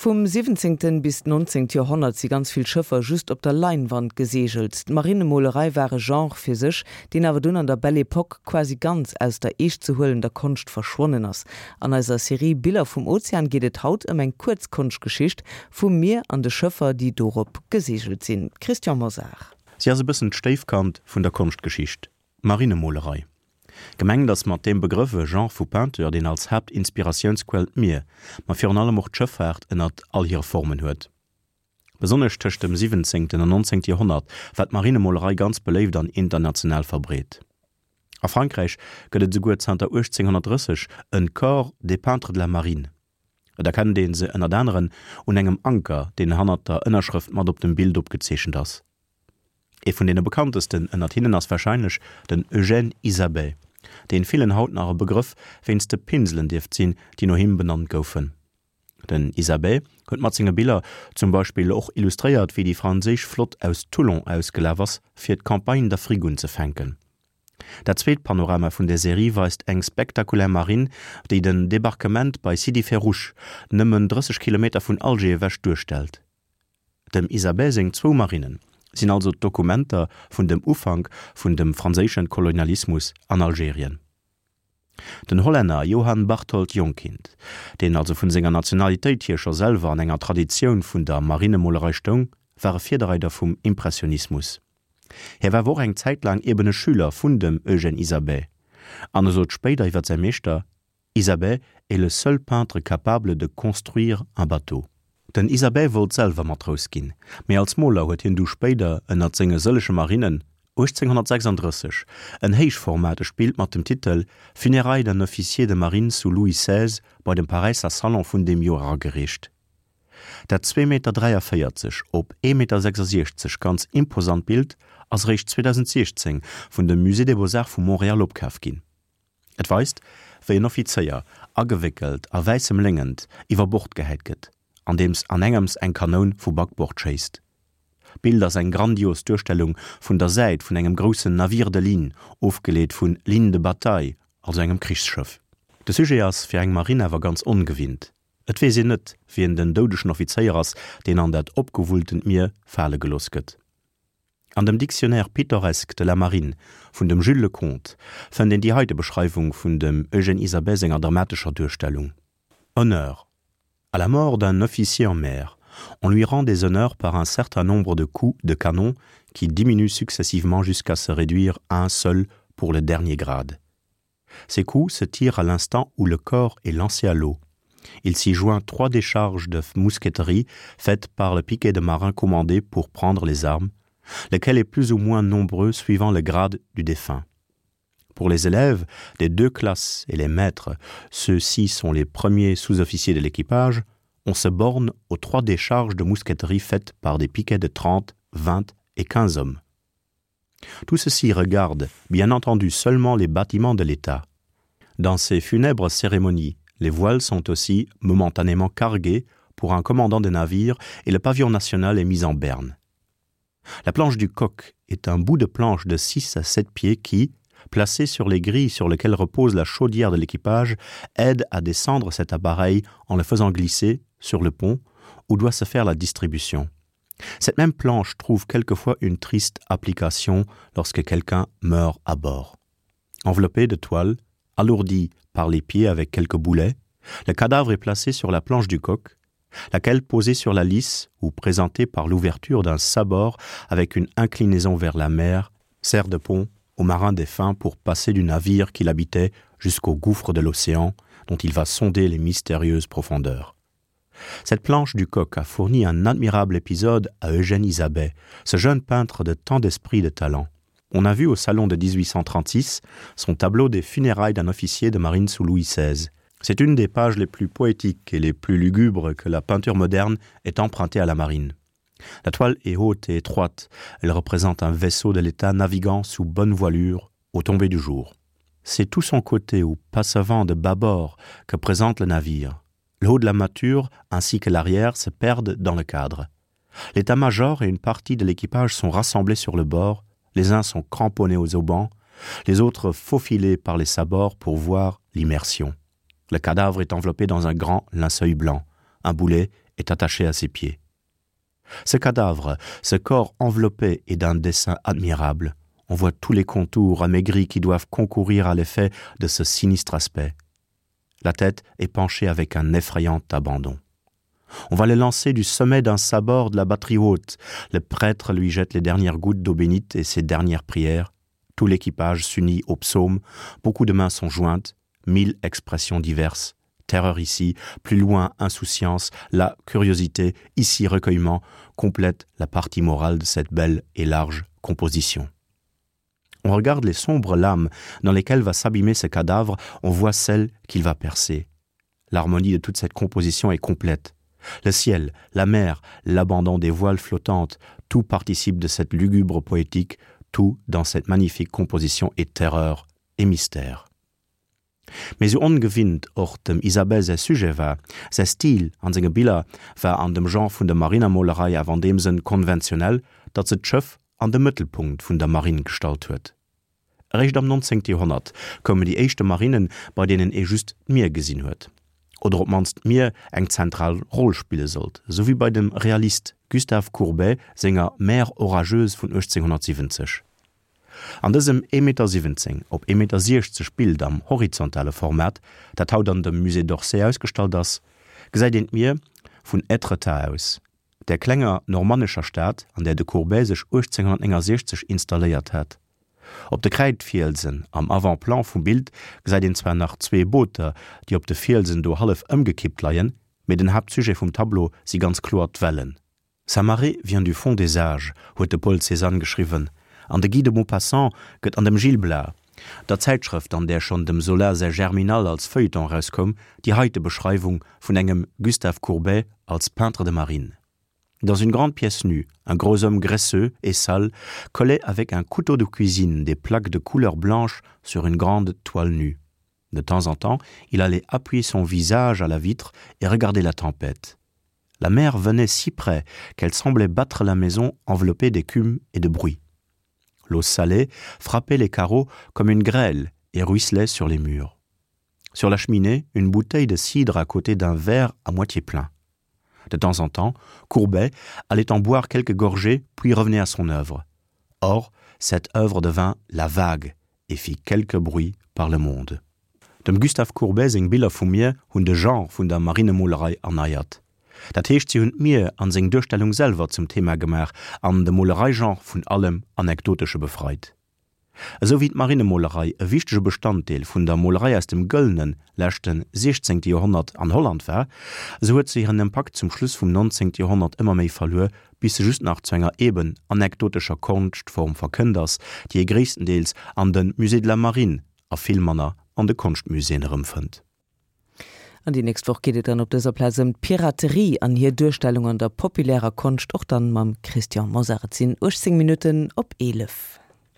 Vum siwwenzéngten bis d'nonzéngt Joerhonnert si ganz vill Schëffer just op der Leinwand geseegelt. D'Marinemolerei war e Genre fir sech, deen awer dunn an der Belle Époque quasi ganz aus der eeschtzehuelender Konscht verschwonnen ass. An eiser Serie Biller vum Ozean geet et haut ëm eng kuerz Konschtgeschicht vum Mier an de Schëffer, déi dorop geseegelt sinn. Christian Mosar. Si ass e bëssen d'Stéifkand vun der Konschtgeschicht, d'Marinemolerei. Gemengt ass mat deem Begrëff e Genre vu Peinture, deen als Haaptinspiratiounsquell d'Mier, ma virun allem och d'Schëffaart ënnert all hire Formen huet. Besonnesch tëscht dem siwwenzéngten an nonzéngte Joerhonnert war d'Marinemolerei ganz beléift an international verbreet. A Frankräich gëtt et esouguer zanter 1830 en Corps des peintres de la marine. Et erkennt ee se ënnert aneren un engem Anker, deen hannert der Ënnerschrëft mat op dem Bild opgezeechent ass. Ee vun deene bekanntesten ënnert hinnen ass warscheinlech den Eugène Isabey, deen villen haut nach e Begrëff wéinst de Pinselen dierft sinn, déi no him benannt goufen. Den Isabey huet mat senge Biller zum Beispill och illustréiert, wéi déi franséisch Flott aus Toulon ausgelaf ass, fir d'Campagne d'Afrique unzefänken. Dat zweet Panorama vun der Serie weist eng spektakulär Marinn, déi den Debarquement bei Sidi Ferruch, nëmmen 30 Kilometer vun Alger ewech, duerstellt. Dem Isabey seng zwou Marinnen sinn also d'Dokumenter vun dem Ufank vun dem franséischen Kolonialismus an Algerien. Den Hollänner Johan Barthold Jongkind, deen also vun senger Nationalitéit hier scho selwer an enger Traditioun vun der Marinemolerei stoung, war e Virdereider vum Impressionismus. Hie war awer och eng Zäit laang eben e Schüler vun dem Eugène Isabey an e sot spéider iwwer säi Meeschter, Isabey est le seul peintre capable de construire un bateau. Den Isabey wollt selwer Matrous ginn, mee als Moler huet hien du spéider ënnert senge sëllege Marinnen 1836 en héichformategt Bild mat dem Titel Funérailles d'un officier de marine sous Louis XVI bei dem Paräisser Salon vun deem Joer eragereecht. Dat 2 Meter 43 op 1 Meter 66 ganz imposant Bild ass eréischt 2016 vun dem Musée des Beaux-Arts vu Montréal opkaf ginn. Et weist, wéi en Offizéier, agewéckelt a wäissem Léngent, iwwer Bord gehäit gëtt, andeems anengems eng Kanoun vu Backbord schéisst. D'Bild ass eng grandios Duerstellung vun der Säit vun engem groussen Navire de ligne, ofgeleet vun ligne de bataille, also engem Krichsschëff. De Sujet ass fir eng Marinn awer ganz ongewinnt. Et weess een net, wien den doudegen Offizéier ass, deen an dat opgewulltent Mier fale gelooss gëtt. An dem Dictionnaire pittoresque de la marine vun dem Jules Leconte fënnt een déi heite Beschreiwung vun dem Eugène Isabey senger dramatescher Duerstellung, Honneur À la mort d'un officier en mer, on lui rend des honneurs par un certain nombre de coups de canon qui diminuent successivement jusqu'à se réduire à un seul pour le dernier grade. Ces coups se tirent à l'instant où le corps est lancé à l'eau. Il s'y joint trois décharges de mousqueterie faites par le piquet de marins commandé pour prendre les armes, lequel est plus ou moins nombreux suivant le grade du défunt. Pour les élèves des deux classes et les maîtres, ceux-ci sont les premiers sous-officiers de l'équipage, on se borne aux trois décharges de mousqueterie faites par des piquets de 30, 20 et 15 hommes. Tout ceci regarde, bien entendu, seulement les bâtiments de l'État. Dans ces funèbres cérémonies, les voiles sont aussi momentanément carguées pour un commandant de navire et le pavillon national est mis en berne. La planche du coq est un bout de planche de 6 à 7 pieds qui, placé sur les grilles sur lesquelles repose la chaudière de l'équipage, aide à descendre cet appareil en le faisant glisser sur le pont où doit se faire la distribution. Cette même planche trouve quelquefois une triste application lorsque quelqu'un meurt à bord. Enveloppé de toile, alourdi par les pieds avec quelques boulets, le cadavre est placé sur la planche du coq, laquelle posée sur la lisse ou présentée par l'ouverture d'un sabord avec une inclinaison vers la mer, sert de pont au marin défunt pour passer du navire qu'il habitait jusqu'au gouffre de l'océan dont il va sonder les mystérieuses profondeurs. Cette planche du coq a fourni un admirable épisode à Eugène Isabey, ce jeune peintre de tant d'esprit de talent. On a vu au salon de 1836 son tableau des funérailles d'un officier de marine sous Louis XVI. C'est une des pages les plus poétiques et les plus lugubres que la peinture moderne ait empruntée à la marine. La toile est haute et étroite, elle représente un vaisseau de l'État naviguant sous bonne voilure au tomber du jour. C'est tout son côté ou passavant de bâbord que présente le navire. Le haut de la mature ainsi que l'arrière se perdent dans le cadre. L'état-major et une partie de l'équipage sont rassemblés sur le bord, les uns sont cramponnés aux aubans, les autres faufilés par les sabords pour voir l'immersion. Le cadavre est enveloppé dans un grand linceul blanc. Un boulet est attaché à ses pieds. Ce cadavre, ce corps enveloppé est d'un dessin admirable. On voit tous les contours amaigris qui doivent concourir à l'effet de ce sinistre aspect. La tête est penchée avec un effrayant abandon. On va le lancer du sommet d'un sabord de la batterie haute. Le prêtre lui jette les dernières gouttes d'eau bénite et ses dernières prières. Tout l'équipage s'unit au psaume, beaucoup de mains sont jointes, mille expressions diverses. Terreur ici, plus loin insouciance, la curiosité, ici recueillement, complète la partie morale de cette belle et large composition. On regarde les sombres lames dans lesquelles va s'abîmer ce cadavre, on voit celle qu'il va percer. L'harmonie de toute cette composition est complète. Le ciel, la mer, l'abandon des voiles flottantes, tout participe de cette lugubre poétique, tout dans cette magnifique composition est terreur et mystère. Mee sou ongewinnt och dem Isabelle säi Sujet war, säi Stil an senge Biller war an dem Genre vun der Marinermolerei awer an deem Sënn konventionell, datt se d'Schëff an de Mëttelpunkt vun der Marinn gestallt huet. Eréischt am 19. Joerhonnert koumen déi éischte Marinnen, bei deenen ee just d'Mier gesinn huet, oder op d'mannst d'Mier eng zentral Roll spille sollt, esou wéi bei dem Realist Gustave Courbet senger Mer orageuse vun 1870. An dësem 1,17 Meter op 1,60 Meter Bild am horizontale Format, dat haut an dem Musée d'Orsay ausgestallt ass, gesäit een d'Mier vun Étretat aus, där klenger normannescher Stad, an där de Courbet sech 1869 installéiert hat. Op de Kräidfielsen am Avant-plan vum Bild gesäit een zwar nach zwee Booter, déi op de Fielsen do hallef ëmgekippt leien, mee den Haaptsujet vum Tableau si ganz kloer d'Wellen. Sa marée vient du fond des âges, huet de Paul Cézanne geschriwwen, an de Guy de Maupassant gëtt an dem Gil Blas, der Zäitschrëft an där schonn dem Zola säi Germinal als Feuilleton erauskoum, déi heite Beschreiwung vun engem Gustave Courbet als peintre de marine. Dans une grande pièce nue, un gros homme graisseux et sale collait avec un couteau de cuisine des plaques de couleur blanche sur une grande toile nue. De temps en temps, il allait appuyer son visage à la vitre et regarder la tempête. La mer venait si près qu'elle semblait battre la maison enveloppée d'écume et de bruit. L'eau salée frappait les carreaux comme une grêle et ruisselait sur les murs. Sur la cheminée, une bouteille de cidre à côté d'un verre à moitié plein. De temps en temps, Courbet allait en boire quelques gorgées puis revenait à son œuvre. Or, cette œuvre devint la vague et fit quelque bruit par le monde. Dem Gustave Courbet seng Biller vum Mier hunn de Genre vun der Marinemolerei erneiert. Dat heescht, si hunn d'Mier an seng Duerstellung selwer zum Thema gemaach an de Molereigenre vun allem Anekdotesche befreit. Esou wéi d'Marinemolerei e wichtege Bestanddeel vun der Molerei aus dem gëllene leschte siechzéngte Joerhonnert an Holland war, esou huet se hiren Impakt zum Schluss vum nonzéngte Joerhonnert ëmmer méi verluer, bis se just nach zu enger eben anekdotescher Konschtform verkënnt ass, déi ee gréisstendeels an de Musée de la Marine a vill manner an de Konschtmuséeën erëmfënnt. An déi nächst Woch geet et dann op dëser Plaz ëm d'Piraterie an hir Duerstellung an der populärer Konscht, och dann mam Christian Mosar. Et sinn 18 Minutten op 11.